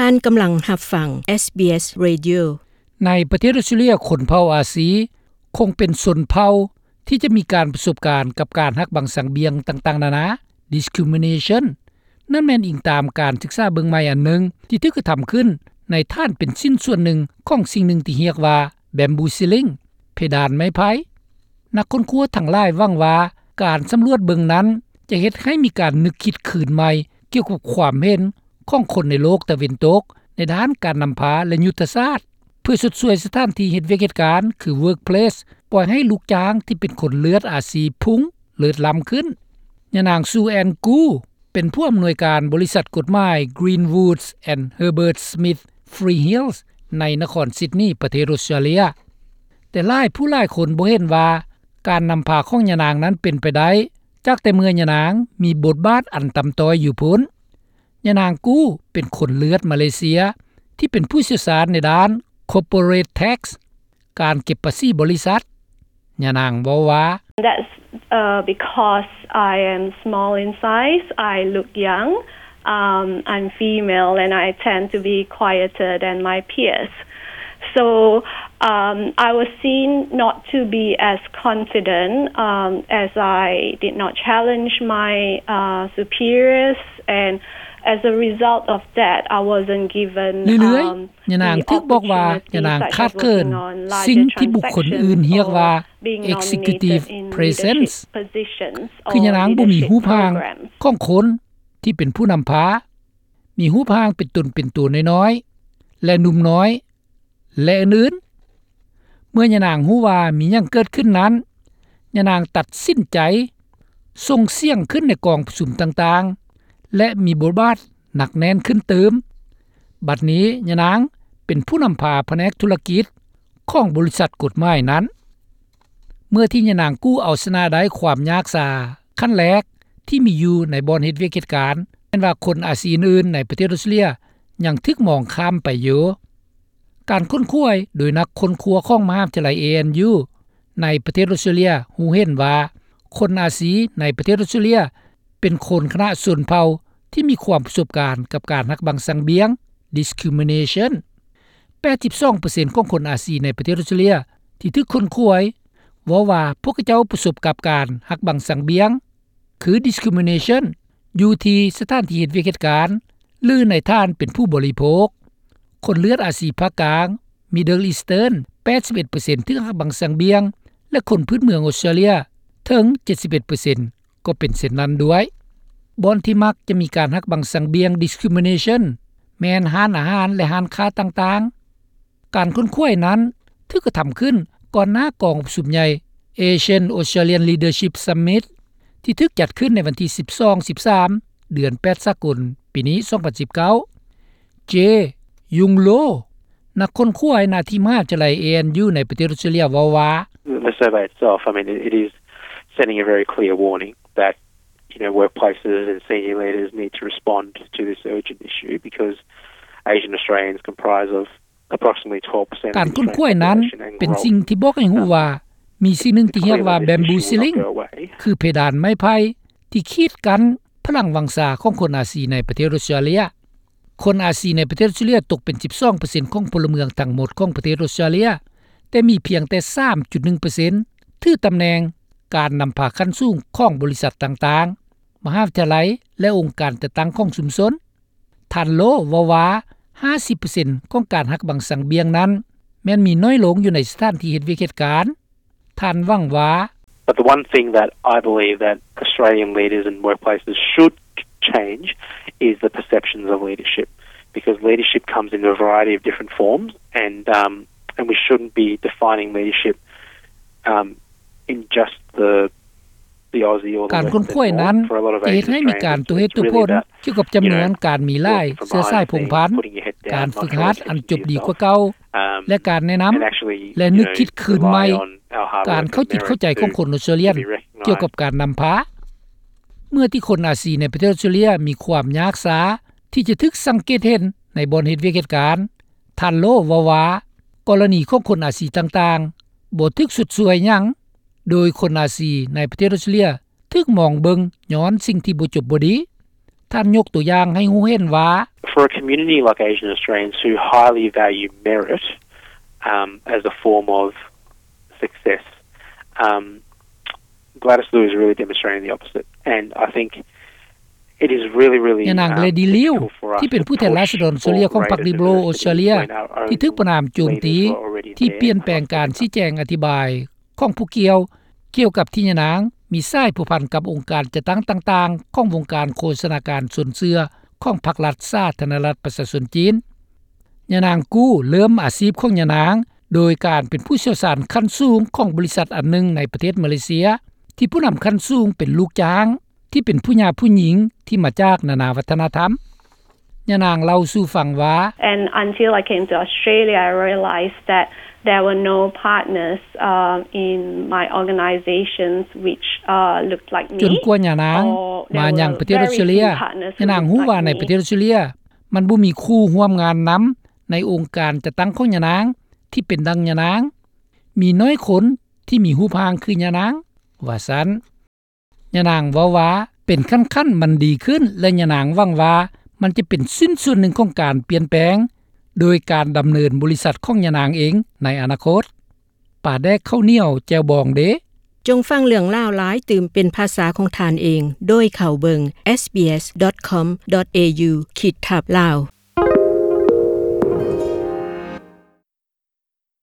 ທ່ານກຳລັງຮັບຟັງ SBS Radio. ໃນປະເທດອົດສະຕຣາເລຍ, ຄົນເຜົ່າອາຊີຄົງເປັນຊົນເຜົ່າທີ່ຈະມີການປະສົບການກັບການຫັກບັງສັງບຽງຕ່າງໆນານາ, discrimination. ນັ້ນແມ່ນອີງຕາມການສຶກສາເບິ່ງໃໝ່ອັນໜຶ່ງທີ່ຖືກກະທຳຂຶ້ນໃນຖານເປັນຊິ້ນສ່ວນໜຶ່ງຂອງສິ່ງໜຶ່ງທີ່ຮຽກວ່າ bamboo ceiling, ເພດານໄມ້ໄຜ່. ນັກຄົ້ນຄວ້າທັງຫຼາຍຫວັງວ່າການສຳຫຼວດເບິ່ງນັ້ນຈະເຮັດໃຫ້ມີການນຶກຄິດຄືນໃໝ່ກ່ຽວກັບຄວາມເຫັນຂອງຄົນໃນໂລກຕາເວັນຕົກໃນດ້ານການນຳພາ ແລະ ຍຸດທະສາດ ເພື່ອຊົດຊ່ວຍສະຖານທີ່ເຮັດວຽກເຮັດການ ຄື workplace, ປ່ອຍໃຫ້ລູກຈ້າງທີ່ເປັນຄົນເລືອດອາຊີພຸ່ງເລີດລ້ຳຂຶ້ນ. ຍານາງ Sue Ann Gould ເປັນຜູ້ອຳນວຍການບໍລິສັດກົດໝາຍ Greenwood and Herbert Smith Freehills ໃນນະຄອນຊິດນີ ປະເທດອົດສະຕຣາເລຍ. ແຕ່ຫຼາຍຜູ້ຫຼາຍຄົນບໍ່ເຫັນວ່າການນຳພາຂອງຍານາງນັ້ນເປັນໄປໄດ້ ຈາກແຕ່ເມື່ອຍານາງມີບົດບາດອັນຕ່ຳຕ້ອຍຢູ່ພຸ້ນ. ຍານາງ Gould ເປັນຄົນເລືອດມາເລເຊຍທີ່ເປັນຜູ້ຊ່ຽວຊານໃນດ້ານ corporate tax, ການເກັບພາສີບໍລິສັດ. ຍານາງເວົ້າວ່າ That's, uh, because I am small in size, I look young, um, I'm female, and I tend to be quieter than my peers. So, um, I was seen not to be as confident, um, as I did not challenge my, uh, superiors, and as a result of that, I wasn't given, ເລື້ອຍໆ um, ຍານາງຖືກບອກວ່າຍານາງຂາດເຂີນສິ່ງທີ່ບຸກຄົນອື່ນຮຽກວ່າ executive presence, ຄືຍານາງບໍ່ມີຮູບຮ່າງຂອງຄົນທີ່ເປັນຜູ້ນຳພາ, ມີຮູບຮ່າງເປັນຕົນເປັນຕົວນ້ອຍໆ ແລະ ໜຸ່ມນ້ອຍ ແລະ ອື່ນໆ. ເມື່ອຍານາງຮູ້ວ່າມີຫຍັງເກີດຂຶ້ນນັ້ນ, ຍານາງຕັດສິນໃຈສົ່ງສຽງຂຶ້ນໃນກອງປະຊຸມຕ່າງໆ ແລະ ມີບົດບາດໜັກແໜ້ນຂຶ້ນຕື່ມ. ບັດນີ້ຍານາງເປັນຜູ້ນຳພາພະແນກທຸລະກິດຂອງບໍລິສັດກົດໝາຍນັ້ນ. ເມື່ອທີ່ຍານາງ Gould ເອົາຊະນະໄດ້ຄວາມຍາກຊາຂັ້ນແລກທີ່ມີຢູ່ໃນບ່ອນເຮັດວຽກເຮັດການ, ແມ່ນວ່າຄົນອາຊີອື່ນໆໃນປະເທດອົດສະຕຣາເລຍຍັງຖືກມອງຂ້າມໄປຢູ່. ການຄົ້ນຄວ້າໂດຍນັກຄົ້ນຄວ້າຂອງມະຫາວິທະຍາໄລ ເອ ເອັນ ຢູ ໃນປະເທດອົດສະຕຣາເລຍຮູ້ເຫັນວ່າ ຄົນອາຊີໃນປະເທດອົດສະຕຣາເລຍເປັນຄົນຄະນະຊົນເຜົ່າທີ່ມີຄວາມປະສົບການກັບການຫັກບັງສັງບຽງ, discrimination. ແປດສິບສອງເປີເຊັນຂອງຄົນອາຊີໃນປະເທດອົດສະຕຣາເລຍທີ່ຖືກຄົ້ນຄວ້າເວົ້າວ່າພວກເຂົາເຈົ້າປະສົບກັບການຫັກບັງສັງບຽງ ຄື discrimination ຢູ່ທີ່ສະຖານທີ່ເຮັດວຽກເຮັດການ ຫຼື ໃນຖານເປັນຜູ້ບໍລິໂພກ. ຄົນເລືອດອາຊີພາກກາງ Middle Eastern ແປດສິບເອັດເປີເຊັນຖືກຫັກບັງສັງບຽງ ແລະ ຄົນພື້ນເມືອງອົດສະຕຣາເລຍເຖິງເຈັດສິບເອັດເປີເຊັນກໍເປັນເຊັ່ນນັ້ນດ້ວຍ. ບ່ອນທີ່ມັກຈະມີການຫັກບັງສັງບຽງ discrimination ແມ່ນຮ້ານອາຫານ ແລະ ຮ້ານຄ້າຕ່າງໆ. ການຄົ້ນຄວ້ານັ້ນຖືກກະທຳຂຶ້ນກ່ອນໜ້າກອງປະຊຸມໃຫຍ່ Asian Australian Leadership Summit ທີ່ຖືກຈັດຂຶ້ນໃນວັນທີສິບສອງ ສິບສາມ ເດືອນແປດສາກົນ ປີນີ້ ສອງພັນສິບເກົ້າ. Jay Yun Lo ນັກຄົ້ນຄວ້າໜ້າທີ່ມະຫາວິທະຍາໄລ ເອ ເອັນ ຢູ ໃນປະເທດອົດສະຕະຕຣາເລຍເວົ້າວ່າ The survey itself, I mean, it, it is sending a very clear warning that, you know, workplaces and senior leaders need to respond to this urgent issue because Asian Australians comprise of approximately twelve percent of the Australian population and growing. ການຄົ້ນຄວ້ານັ້ນເປັນສິ່ງທີ່ບອກໃຫ້ຮູ້ວ່າ ມີສິ່ງໜຶ່ງທີ່ຮຽກວ່າ bamboo ceiling ຄືເພດານໄມ້ໄຜ່ທີ່ຂີດກັ້ນພະລັງວັງຊາຂອງຄົນອາຊີໃນປະເທດອົດສະຕຣາເລຍ. ຄົນອາຊີໃນປະເທດອົດສະຕຣາເລຍຕົກເປັນສິບສອງເປີເຊັນຂອງພົນລະເມືອງທັງໝົດຂອງປະເທດອົດສະຕຣາເລຍ, ແຕ່ມີພຽງແຕ່ສາມຈຸດໜຶ່ງເປີເຊັນຖືຕຳແໜ່ງການນຳພາຂັ້ນສູງຂອງບໍລິສັດຕ່າງໆ, ມະຫາວິທະຍາໄລ ແລະ ອົງການຈັດຕັ້ງຂອງຊຸມຊົນ. ທ່ານ Lo ເວົ້າວ່າ ຫ້າສິບເປີເຊັນຂອງການຫັກບັງສັງບຽງນັ້ນ ແມ່ນມີໜ້ອຍລົງຢູ່ໃນສະຖານທີ່ເຮັດວຽກເຮັດການ. ທ່ານຫວັງວ່າ But the one thing that I believe that Australian leaders and workplaces should change is the perceptions of leadership, because leadership comes in a variety of different forms, and, um, and we shouldn't be defining leadership, um, in just the ການຄົ້ນຄວ້ານັ້ນຈະເຮັດໃຫ້ມີການຕົວເຫດຕົວຜົນກ່ຽວກັບຈຳນວນການມີຫຼາຍເຊື້ອສາຍພົງພັນ, ການຝຶກຫັດອັນຈົບດີກວ່າເກົ່າ ແລະ ການແນະນຳ ແລະ ນຶກຄິດຄືນໃໝ່ການເຂົ້າຈິດເຂົ້າໃຈຂອງຄົນອົດສະຕຣາເລຍນກ່ຽວກັບການນຳພາ. ເມື່ອທີ່ຄົນອາຊີໃນປະເທດອົດສະຕຣາເລຍມີຄວາມຍາກຊາທີ່ຈະຖືກສັງເກດເຫັນໃນບ່ອນເຮັດວຽກເຮັດການ, ທ່ານ Lo ເວົ້າວ່າ ກໍລະນີຂອງຄົນອາຊີຕ່າງໆບໍ່ຖືກຊົດຊ່ວຍຫຍັງ, ໂດຍຄົນອາຊີໃນປະເທດອົດສະຕຣາເລຍຖືກມອງເບິ່ງຍ້ອນສິ່ງທີ່ບໍ່ຈົບບໍ່ດີ. ທ່ານຍົກຕົວຢ່າງໃຫ້ຮູ້ເຫັນວ່າ For a community like Asian Australians who highly value merit, um, as a form of success, um, Gladys Liu is really demonstrating the opposite. And I think it is really, really, ຍານາງ um, ເລດີ ລິວ critical for us ທີ່ເປັນຜູ້ແທນລາຊະດອນເຊເລັຍຂອງພັກ Liberal Australia ທີ່ຖືກປະນາມໂຈມຕີ ທີ່ປ່ຽນແປງການຊີ້ແຈງອະທິບາຍຂອງຜູ້ກ່ຽວ ກ່ຽວກັບທີ່ຍານາງມີສາຍພົວພັນກັບອົງການຈັດຕັ້ງຕ່າງໆຂອງວົງການໂຄສະນາການຊົນເຊື້ອຂອງພັກລັດສາທາລະນະລັດປະຊາຊົນຈີນ. ຍານາງ ກູ ເລີ່ມອາຊີບຂອງຍານາງໂດຍການເປັນຜູ້ຊ່ຽວຊານຂັ້ນສູງຂອງບໍລິສັດອັນໜຶ່ງໃນປະເທດມາເລເຊຍ ທີ່ຜູ້ນຳຂັ້ນສູງເປັນລູກຈ້າງ ທີ່ເປັນຜູ້ຫຍາຜູ້ຍິງທີ່ມາຈາກນານາວັດທະນະທຳ. ຍານາງເລົ່າສູ່ຟັງວ່າ And until I came to Australia, I realized that there were no partners, uh, in my organizations which, uh, looked like me. ຈົນກວ່າຍານາງມາຍັງປະເທດອອສເຕຣເລຍ ຍານາງຮູ້ວ່າໃນປະເທດອອສເຕຣເລຍ ມັນບໍ່ມີຄູ່ຮ່ວມງານນຳໃນອົງການຈັດຕັ້ງຂອງຍານາງທີ່ເປັນດັ່ງຍານາງ. ມີໜ້ອຍຄົນທີ່ມີຮູບຮ່າງຄືຍານາງ, ວ່າຊັ້ນ. ຍານາງເວົ້າວ່າເປັນຂັ້ນໆມັນດີຂຶ້ນ ແລະ ຍານາງຫວັງວ່າມັນຈະເປັນຊິ້ນສ່ວນໜຶ່ງຂອງການປ່ຽນແປງ ໂດຍການດຳເນີນບໍລິສັດຂອງຍານາງເອງໃນອະນາຄົດ. ປາແດກເຂົ້າໜຽວແຈ່ວບອງເດ. ຈົ່ງຟັງເລື່ອງລາວຫຼາຍຕື່ມເປັນພາສາຂອງທ່ານເອງ ໂດຍເຂົ້າເບິ່ງ sbs.com.au ຂີດທັບ Lao.